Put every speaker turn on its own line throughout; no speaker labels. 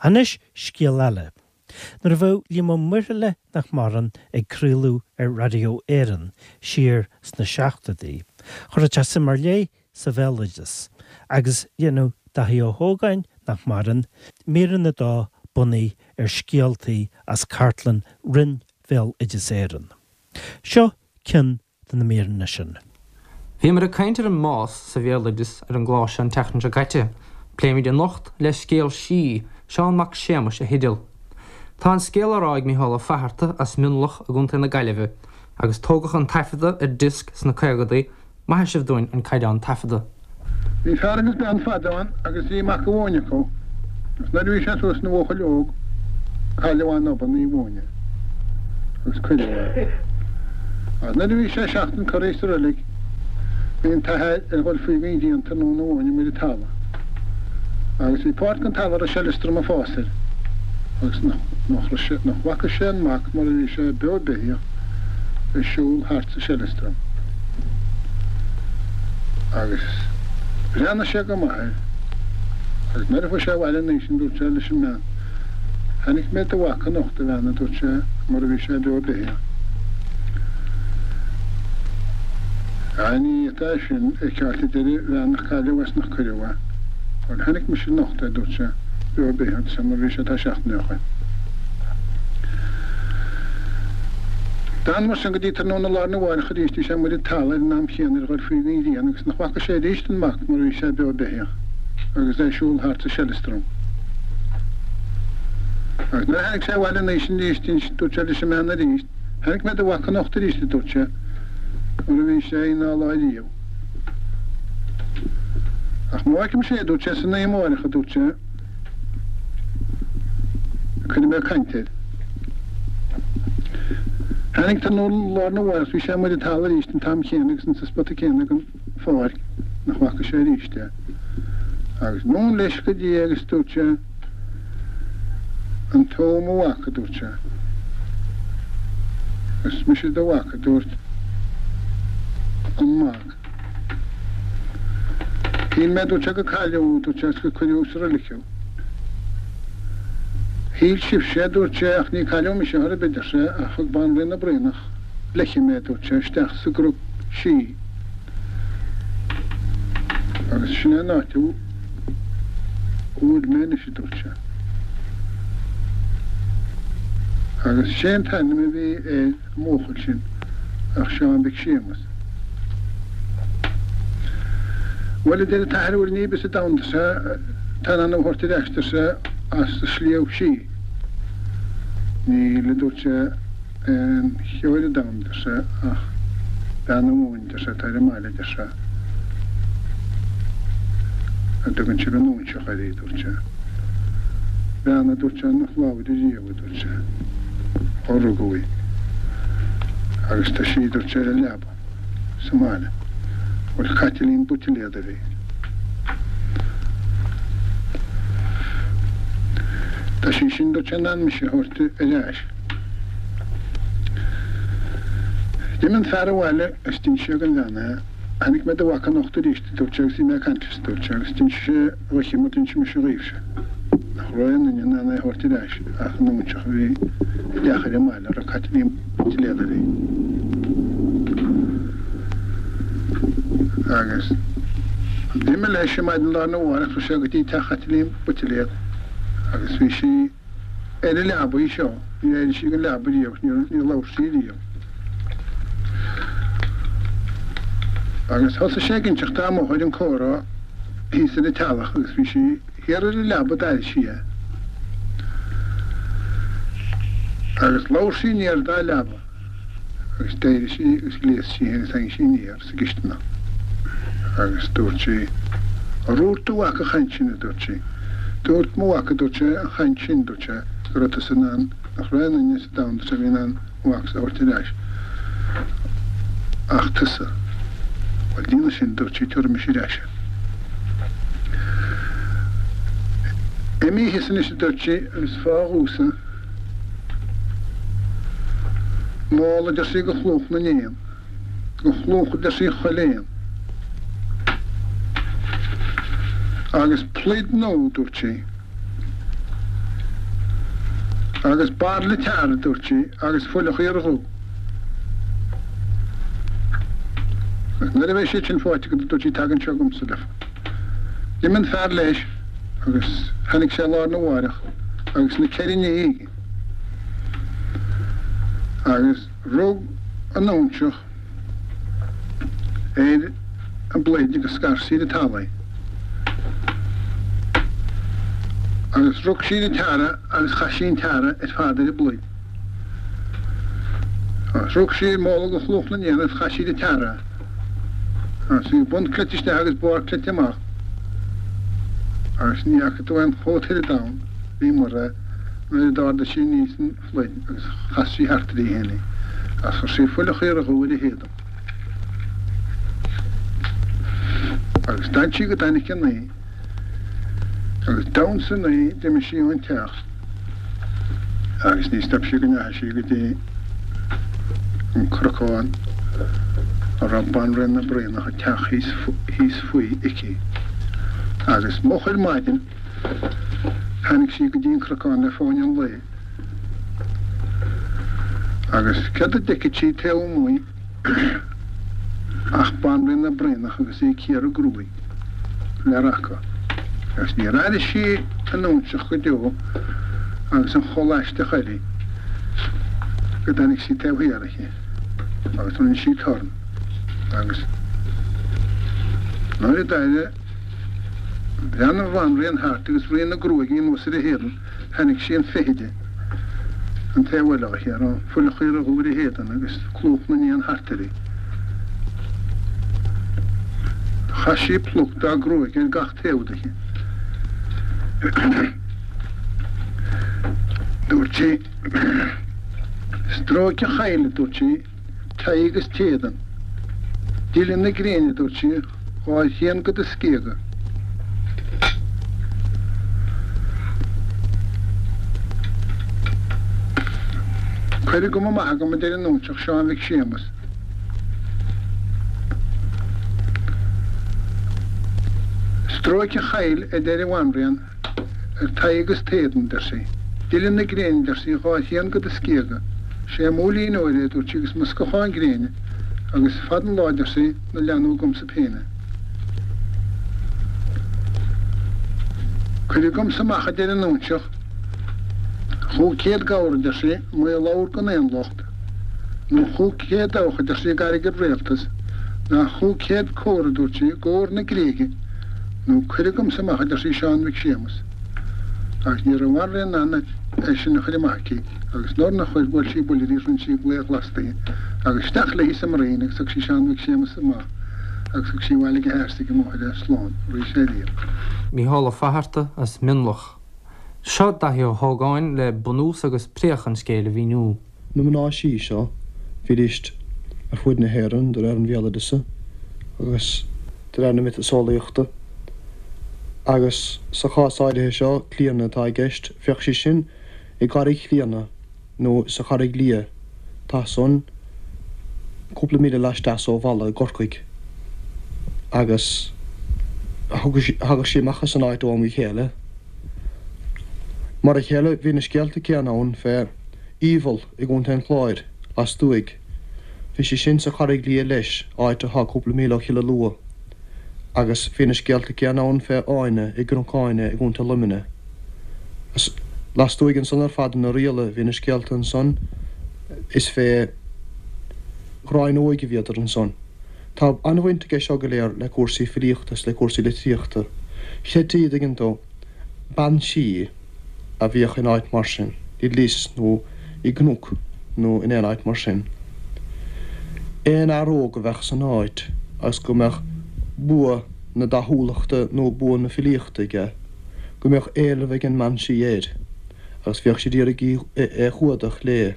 Anois scéal eile. Nuair a bheadh Liam Ó Muirthile nach maireann ag craoladh ar Raidió Éireann siar sna seachtóidí, chuireadh sé suim ar leith sa bhéaloideas agus dhéanadh Daithí Ó hÓgáin, nach maireann, míreanna dó bunaithe ar scéaltaí as cartlann Roinn Bhéaloideas Éireann. Seo ceann de na míreanna sin.
Bhíomar ag caint ar an mbás sa bhéaloideas ar an gclár seo an tseachtain seo caite. Pléimid anocht le scéal sí, Seán Mac Séamais a theideal. Tá an scéal á rá ag Micheál Ó Fatharta as Mionlach i gContae na Gaillimhe agus tógadh an taifeadadh ar diosc sna caogadaí, Maithfidh sibh dúinn an caighdeán taifeadta.
Bhí fear agus bean fadó ann agus bhí mac amháin acu agus nuair a bhí sé suas ina bhuachaill óg cailleadh é in obann í mhóine agus cuireadh é. Agus nuair a bhí sé seachtain curtha sa roilig bhí an t-athair ar dhul faoi gon ghrian tráthnóna amháin amuigh ar an talamh agus bhí páirt gon talamh a raibh seileastram ag fás air agus nach raibh sé nach bhfaca sé an mac mar a bhí sé beo beithíoch ag siúl thart sa seileastram. Agus bhreathnaigh sé go maith air. Agus nuair a chuaigh sé abhaile an oíche sin dúirt sé leis an mbean, Chonaic mé do mhac anocht, a bhean, a dúirt sé, mar a bhí sé beo beithíoch. Á, ní fhéadfá é sin a fheiceáilt, a deir an bhean, nach cailleadh é is nach cuireadh é. Bhuel, chonaic mise anocht é, a dúirt sé, beo beithíoch, a dúirt sé, mar a bhí sé tá seachtain ó shoin. D'fhan mar sin go dtí tráthnóna lá arna mháireach arís bhí sé amuigh ar an talamh ar an am chéanna ar dhul faoi gon ghrian agus nach bhfaca sé arís an mac mar a bhí sé beo beithíoch agus é ag siúl thart sa seileastram. Agus nuair a tháinig sé abhaile an oíche sin arís dúirt sé leis an mbean arís, Chonaic mé do mhac anocht arís a dúirt sé, mar a bhí sé aon dá lá riamh. Ach má fheicimse é a dúirt sé san oíche amáireach a dúirt sé, Cuirfidh mé caint air. Tháinig tráthnóna lá arna mháireach bhí sé amuigh ar an talamh arís an t-am chéanna agus insa spota céanna den pháirc nach bhfaca sé arís é. Agus anonn leis go dtí é agus dúirt sé, An tú mo mhac, a dúirt sé. Is mise do mhac, a dúirt an mac. Shíl mé, a dúirt sé, gur cailleadh thú, a dúirt sé, agus gur cuireadh sa roilig thú. Shíl sibhse, a dúirt sé, ach ní cailleadh mise chor ar bith, ar sé, ach thug Banríon na Braonach léithi mé, a dúirt sé, isteach sa gcnoc sí agus sin é an áit a bhfuil mé anois, a dúirt sé. Agus sé an t-ainm a bhí ar an mbuachaill sin ach Seán Mhic Séamuis. Bhuel, a deir an t-athair, an bhfuil ní ar bith sa domhan, ar sé, atá in ann thú a thabhairt ar ais, ar sé, as an sliabh sí. Níl, a dúirt sé, aon cheo ar an domhan, a deir sé, ach bean amháin, a deir sé, atá ar an mbaile, a deir sé, a dtugann sibh an óinseach uirthi, a dúirt sé. Bean, a dúirt sé, nach labhair ariamh, a dúirt sé, ó rugadh í. Agus tá sí, a dúirt sé, ar an leaba. sa mbaile. Bhuel Caitlín Buitiléad a bhí. Tá sí sin dúirt sé in ann mise a thabhairt ar ais. D'imigh an fear abhaile agus d'inis sé don bhean é. Chonaic mé do mhac anocht arís a dúirt sé agus bhí mé ag caint leis a dúirt sé agus d'inis sé dhuitse mar d'inis mise dhaoibhse. Nach raibh aon duine in ann é a thabhairt ar ais ach an óinseach a bhí i dteach ar an mbaile a raibh Caitlín Buitiléad uirthi. Agus d'imigh leis ar maidin lá arna mhárach chuaigh sé go dtí teach Chaitlín Buitiléad agus bhí sí ar an leabaidh seo, níor éirigh sí den leaba riamh, níor labhair sí riamh. Agus thosaigh sé ag inseacht di amuigh ar an comhrá thíos ar an teallach agus bhí sí thiar ar an leaba d'airigh sí é. Agus labhair sí aniar dá leaba agus d'éirigh sí agus ghléas sí agus tháinig sí aniar sa gcisteanach agus dúirt sí, Ar dhúirt do mhac an chaint sin, a dúirt sí. Dúirt mo mhac, a dúirt sé, an chaint sin, dúirt sé, go raibh tusa in ann, nach raibh aon duine sa domhan, dúirt sé, a bhí in ann mo mhacsa a thabhairt ar ais ach tusa. Bhuel, déanadh sin, dúirt sí, tabharfaidh mise ar ais é. Imigh thíos anois, a dúirt sí, agus faigh dhomhsa mála, a deir sí, de chlúch na n-éan, de chlúch, a deir sí, chuile éan. Agus pluid nua, dúirt sí. Agus bairille teara, a dúirt sí, agus fuil an chaora dhubh. Agus nuair a bheidh siad sin faighte agat, a dúirt sí, tag anseo chugamsa leofa. D'imigh an fear leis agus tháinig sé lá arna mháireach agus na ceithre nithe aige. Agus rug an óinseach ar an bpluid agus scar sí ar an talamh í. Agus rug sí ar an teara agus chaith sí an teara ar fad ar an bpluid. Agus rug sí ar mhóla de chlúmh na n-éan agus chaith sí ar an teara é. Agus bhí bun cleite isteach agus barr cleite amach. Agus ní fhaca tú aon chóta ar domhan bhí mar é nuair a d'ardaigh sí aníos an phluid agus chas sí thart uirthi féin í agus chuir sí fuil an chaora dhubh ar a héadan. Agus d'fhan sí go dtáinig an oíche agus d'fhan san oíche d'imigh sí ón teach agus ní stop sí go ndeachaigh sí go dtí an cnocán a raibh Banríon na Braonach an teach thíos thíos faoi aici. Agus moch ar maidin tháinig sí go dtí an cnocán le fáinne an lae agus céard a d'fheicfeadh sí taobh amuigh ach Banríon na Braonach agus í ag cíoradh gruaig le raca. Agus níor airigh sí an óinseach go deo agus an chulaith aisteach uirthi go dtáinig sí taobh thiar aici agus rinne sí torann agus nuair a d'éirigh bhreathnaigh an bhanríon thart agus rian na gruaige anuas ar a héadan Chonaic sí an feithide an taobh eile aici, a raibh fuil an chaora dhubh ar a héadan agus clúmh na n-éan thart uirthi. Chaith sí pluc dá gruaig ar gach taobh dichi. Dúirt sí, Stróic an chaill, a dúirt sí, t'aghaidh agus t'éadan. Dile na gréine, a dúirt sí, dhá thrian de do scíoga. Cuir agam amach agam, a deir an óinseach, Seán Mhic Séamas. Stróic an chaill, a deir an bhanríon, Ar t'aghaidh agus t'éadan, deir sí. Dile na gréine, deir sí, dhá thrian de do scíoga. Sé m'úillín óir é, a dúirt sí, agus mo scáthán gréine, agus fada an lá, deir sí, na leanbh agamsa péine. Cuir agamsa amach, a deir an óinseach, chúig chéad gabhar, a deir sí, maolabhar gan aon locht, nó 500 dabhach, a deir sí, d'airgead rialtais, ná 500 cór, a dúirt sí, d'ór na Gréige, nó cuir agamsa amach, a deir sí, Seán Mhic Séamas. Agus ní raibh an bhanríon in ann é sin a chur amach aici, agus nuair nár chuir, bhuail sí buille uirthi, rinne sí glao glas di, agus isteach léi sa mbroinn agus thug sí Seán Mhic Séamas amach agus thug sí abhaile ag a hathair is ag a máthair é slán arís ariamh.
Mícheál Ó Fatharta as Mionlach. Seo Daithí Ó hÓgáin le bunús agus préach an scéil a mhíniú.
Na mná sí seo, bhídíst ar fuaid na hÉireann de réir an bhéaloideasa agus de réir na miotaseolaíochta, agus sa chás áirithe seo, Clíodhna atá i gceist, bheadh sí sin i gCarraig Chlíodhna nó sa Charraig Liath, tá san cúpla míle laisteas ó Mhala i gCorcaigh, agus thagadh sí amach as an áit ó am go chéile. Mar a chéile bhí na scéalta céanna ann fé Aoibheall i gContae an Chláir, lastuaidh. Bhí sí sin sa Charraig Liath leis, áit atá cúpla míle ó Chill Alua. Agus bhí na scéalta céanna ann fé Áine i gCnoc Áine i gContae Luimnigh. Agus lastuaidh ansan ar fad in Oirialla bhí na scéalta ansan is fé Ghráin Óig a bhíodar ansan. Tá an-bhaint aige seo go léir le cúrsaí filíochta is le cúrsaí litríochta. Chreidtí, an dtuigeann tú, bean sí a bhíodh in áit mar sin, i lios nó i gcnoc nó in aon áit mar sin. Aon fhear óg a bheadh san áit agus go mbeadh bua na dathúlachta nó bua na filíochta aige, go mbeadh éileamh ag an mbean sí air agus bhíodh sí d'iarraidh é a chumhdach léi.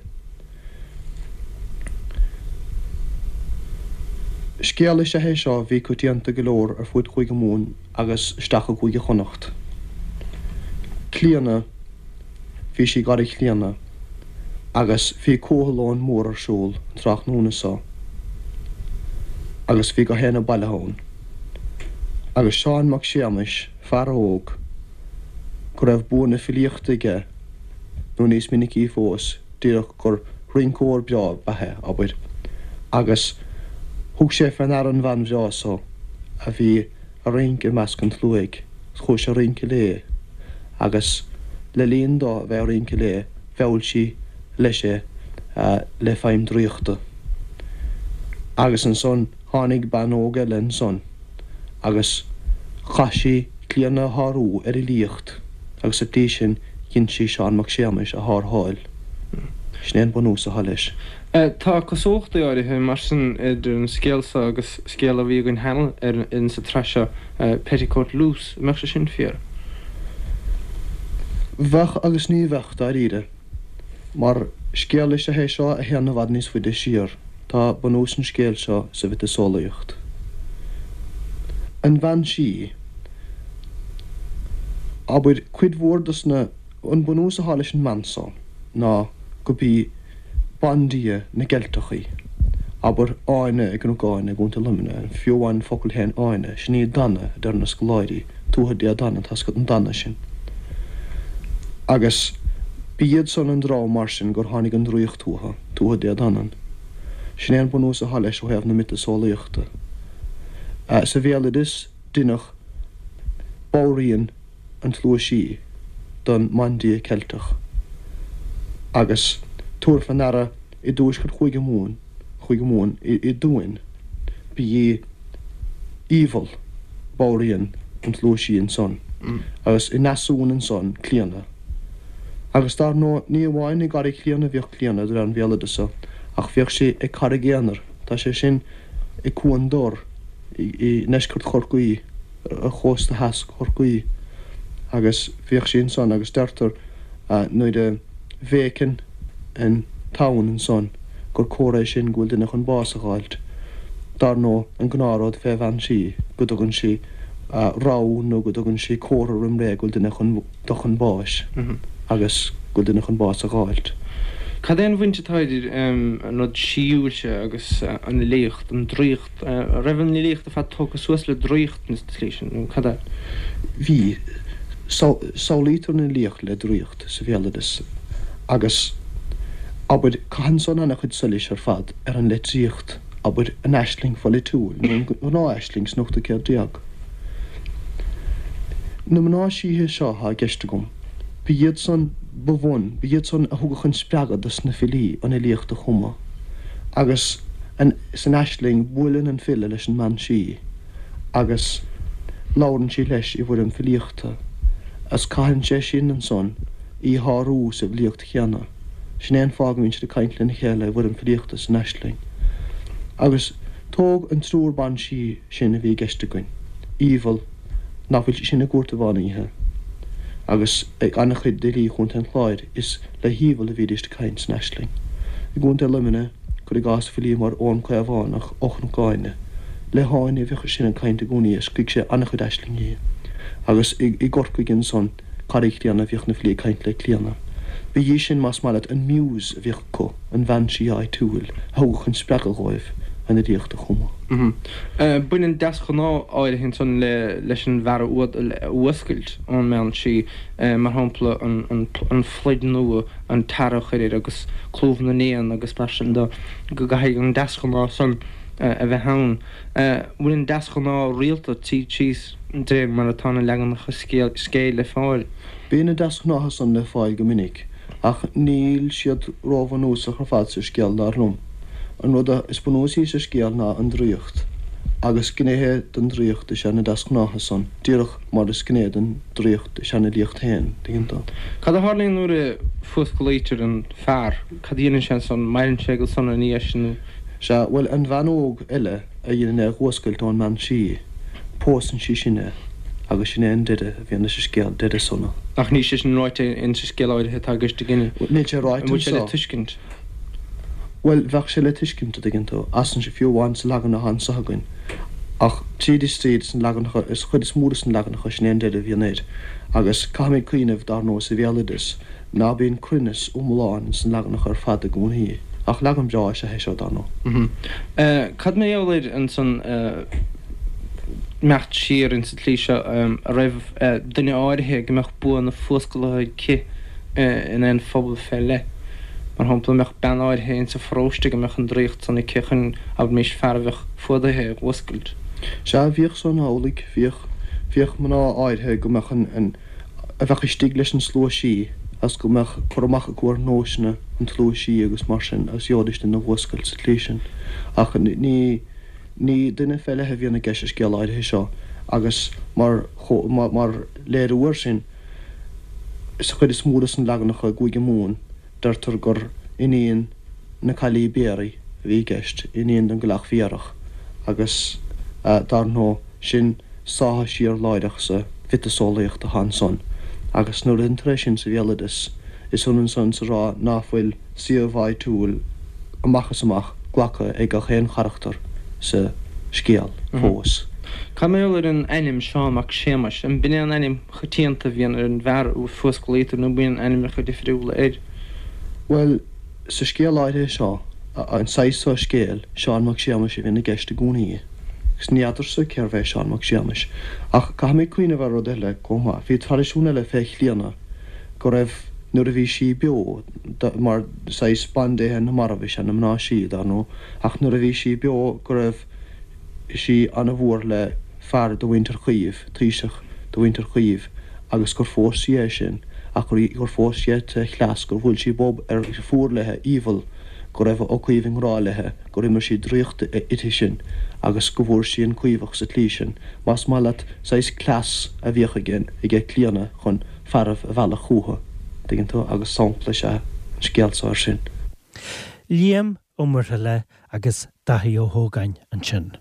Scéal is ea é seo a bhí coitianta go leor ar fuaid Chúige Mumhan agus isteach i gCúige Chonnacht. Clíodhna, Bhí sí i gCarraig Chlíodhna agus bhí comhthiolón mór ar siúl an tráthnóna so agus bhí gach éinne bailithe ann. Agus Seán Mac Séamais, fear óg go raibh bua na filíochta aige. nó níos minicí fós, díreach gur rinceoir breá ab ea é, abair, agus thug sé fé ndeara an bhean bhreá so a bhí a' rince i measc an tsluaigh, 's chuaigh sé a rince léi, agus le linn dó a bheith a rince léi, mheall sí leis é le feidhm draíochta. Agus ansan tháinig bean óg eile ansan agus chaith sí Clíodhna a shárú ar fhilíocht agus sa tslí sin dhein sí Seán Mac Séamais a shártháil. Sin é an bunús atá leis.
Tá cosúlachtaí áirithe, mar sin, idir an scéal seo agus scéal a bhí againn cheana ar in sa tsraith seo, Petticoat Loose. An mbeadh sé sin fíor?
Bheadh agus ní bheadh, dáiríre. Mar scéal is ea é seo a théann i bhfad níos faide siar. Tá bunús an scéil seo sa mhiotaseolaíocht. An bhean sí. Abair, cuid mhór dos na. An bunús atá leis an mbean so ná go b'í bandia na gCeilteach í. Abair, Áine i gCnoc Áine i gContae Luimnigh, fiú amháin an focal féin Áine, sin í Dana, a deir na scoláirí, Tuatha Dé Danann, tá 's agat an Dana sin. Agus b'iad san an dream mar sin gur tháinig an draíocht uathu, Tuatha Dé Danann. Sin é an bunús atá leis ó thaobh na miotaseolaíochta. Sa bhéaloideas, deineadh banríon an tslua sí don mbandia Ceilteach agus tabhair fé ndeara i dtuaisceart Chúige Mumhan, Chúige Mumhan, i dTuaim, ba í Aoibheall banríon an tslua sí ansan agus i nDeasumhan ansan Clíodhna. Agus dar ndóigh ní amháin i gCarraig Chlíodhna a bhíodh Clíodhna de réir an bhéaloideasa ach bhíodh sí ag Carraig Aonair, tá sé sin i Cuan Dor i ndeisceart Chorcaí. ar chósta theas Chorcaí agus bhíodh sí ansan agus deirtear nuair a bhéiceann an tonn ansan gur comhartha é sin go bhfuil duine chun bás a dh'fháilt. Dar ndóigh an gnáthrud fé bhean sí go dtugann sí rabhadh nó go dtugann sí comhartha roim ré go bhfuil duine chun dul chun báis agus go bhfuil duine chun bás a dh'fháilt.
Cad é an bhaint atá idir an rud síúil seo agus an fhilíocht, an draíocht? An raibh an fhilíocht ar fad tógtha suas le draíocht sa tslí sin, nó cad é?
Bhí. Samhlaítear an fhilíocht le draíocht sa bhéaloideas agus, abair, caitheann san an-chuid solais ar fad ar an litríocht, abair, an aisling pholaitiúil nó an ghnáth-aisling san ochtú céad déag. Na mná síthe seo atá i gceist agam, ba iad san ba bhun, ba iad san a thugadh an spreagadh dos na filí an fhilíocht a chumadh agus an. San aisling, buaileann an file leis an mbean sí agus labhrann sí leis i bhfoirm filíochta, agus caitheann sé sin ansan í a shárú sa bhfilíocht chéanna. Sin é an fáth go mbíonn siad ag caint lena chéile i bhfoirm filíochta san aisling. Agus tóg an triúr ban sí sin a bhí i gceist againn, Aoibheall, nach bhfuil sí sin i gCúirt an Mheán Oíche, agus ag an-chuid d'fhilí Chontae an Chláir, is le hAoibheall a bhídíst ag caint san aisling. I gContae Luimnigh, cuir i gcás filí mar Eoghan Caomhánach ó Chnoc Áine, le hÁine a bhíodh sé sin ag caint i gcónaí is scrígh sé an-chuid aislingí. Agus i gCorcaigh ansan, Carraig Chlíodhna, bhíodh na filí ag caint le Clíodhna. Ba í sin, más maith leat, an muse a bhíodh acu, an bhean sí áitiúil a thugadh an spreagadh dhóibh an fhilíocht a chumadh.
Baineann deasghnáth áirithe ansan leis an bhfear a fhuascailt ón mbean sí. mar shampla an phluid nua, an tar a chur air agus clúmh na n-éan agus mar sin de, go gcaithfidh an deasghnáth san a bheith ann. Bhfuil an deasghnáth rialta tríd síos de réir mar atá na leaganacha scéil le fáil?
Bíonn na deasghnátha san le fáil go minic, ach níl siad róbhunúsach ar fad sa scéal dar liom. An rud is bunúsaí sa scéal ná an draíocht, agus gnéithe den draíocht is ea na deasghnátha san, díreach mar is gné den draíocht is ea an fhilíocht féin, tuigeann tú.
Cad a tharlaíonn nuair a fuasclaítear an fear? Cad a dhéanann sé ansan? Maireann sé go sona ina dhiaidh sin nó?
Sea, bhuel, an bhean óg eile a dhéanann é a dh'fhuascailt ón mbean sí, pósann sí sin é, agus sin é an deireadh a bhíonn leis an scéal, deireadh sona.
Ach níl sé sin ráite insa scéal áirithe atá i gceist againne.
Níl sé ráite
An bhfuil sé le anseo. tuiscint?
Bhuel, bheadh sé le tuiscint, a dtuigeann tú, as an, fiú amháin sa leagan atá anso againn. Ach tríd is tríd, sna leaganacha, is chuid is mó de sna leaganacha, sin é an deireadh a bhíonn air. Agus caithfimid cuimhneamh, dar ndóigh, sa bhéaloideas, ná bíonn cruinneas iomlán ins na leaganacha ar fad i gcónaí. Ach leagan breá is ea é seo, dar
ndóigh. Cad mar gheall air ansan, imeacht siar insa tslí seo, a raibh duine áirithe go mbeadh bua na fuascalaithe aici? in aon phobal fé leith. Mar shampla, an mbeadh bean áirithe ins an pharóiste go mbeadh an draíocht san aici chun, abraimis, fear a bheadh fuadaithe a fhuascailt?
Sea, bhíodh san amhlaidh, bhíodh. Bhíodh mná áirithe go mbeadh an, an, a bheadh istigh leis an slua sí agus go mbeadh cur amach acu ar nósanna an tslua sí agus mar sin agus gheobhaidís duine a fhuascailt sa tslí sin. Ach ní, ní duine fé leith a bhíonn i gceist sa scéal áirithe seo agus mar, mar léiriú air sin, Sa chuid is mó de na leaganacha i gCúige Mumhan, deirtear gur iníon na Caillí Béaraí a bhí i gceist, iníon den gCailleach Bhéarach, agus dar ndóigh, sin sáithe siar láithreach sa mhiotaseolaíocht atá ansan. Agus nuair a deintear é sin sa bhéaloideas, is ionann san is a rá ná fuil suíomh áitiúil amach is amach glactha ag gach aon charachtar sa scéal fós.
Cad mar gheall ar an ainm Seán Mac Séamais? An b'in é an ainm choitianta a bhíonn ar an bhfear a fuasclaítear nó bíonn ainmneacha difriúla air?
Bhuel, sa scéal áirithe seo, an saghas seo scéil, Seán Mac Séamais a bhíonn i gceist i gcónaí. Agus ní fheadarsa cérbh é Seán Mac Séamais. Ach caithfimid cuimhneamh ar rud eile chomh maith. Bhí traidisiún eile fé Chlíodhna go raibh, nuair a bhí sí beo, mar saghas bandéithe na marbh is ea na mná sí, dar ndóigh, ach nuair a bhí sí beo go raibh sí ana-mhór le fear de mhuintir Chaoimh, taoiseach de mhuintir Chaoimh, agus gur phós sí é sin, ach gur phós sí é tré chleas, gur bhuail sí bob ar fuar léithe, Aoibheall, go raibh Ó Caoimh i ngrá léithe, gur imir sí draíocht uirthi sin agus go bhfuair sí an Caomhach sa tslí sin. Más maith leat, saghas cleas a bhíodh aige, aige Clíodhna chun fearaibh a mhealladh chúithi, dtuigeann tú, agus sampla is ea an scéal so air sin.
Liam Ó Muirthile agus Daithí Ó hÓgáin ansin.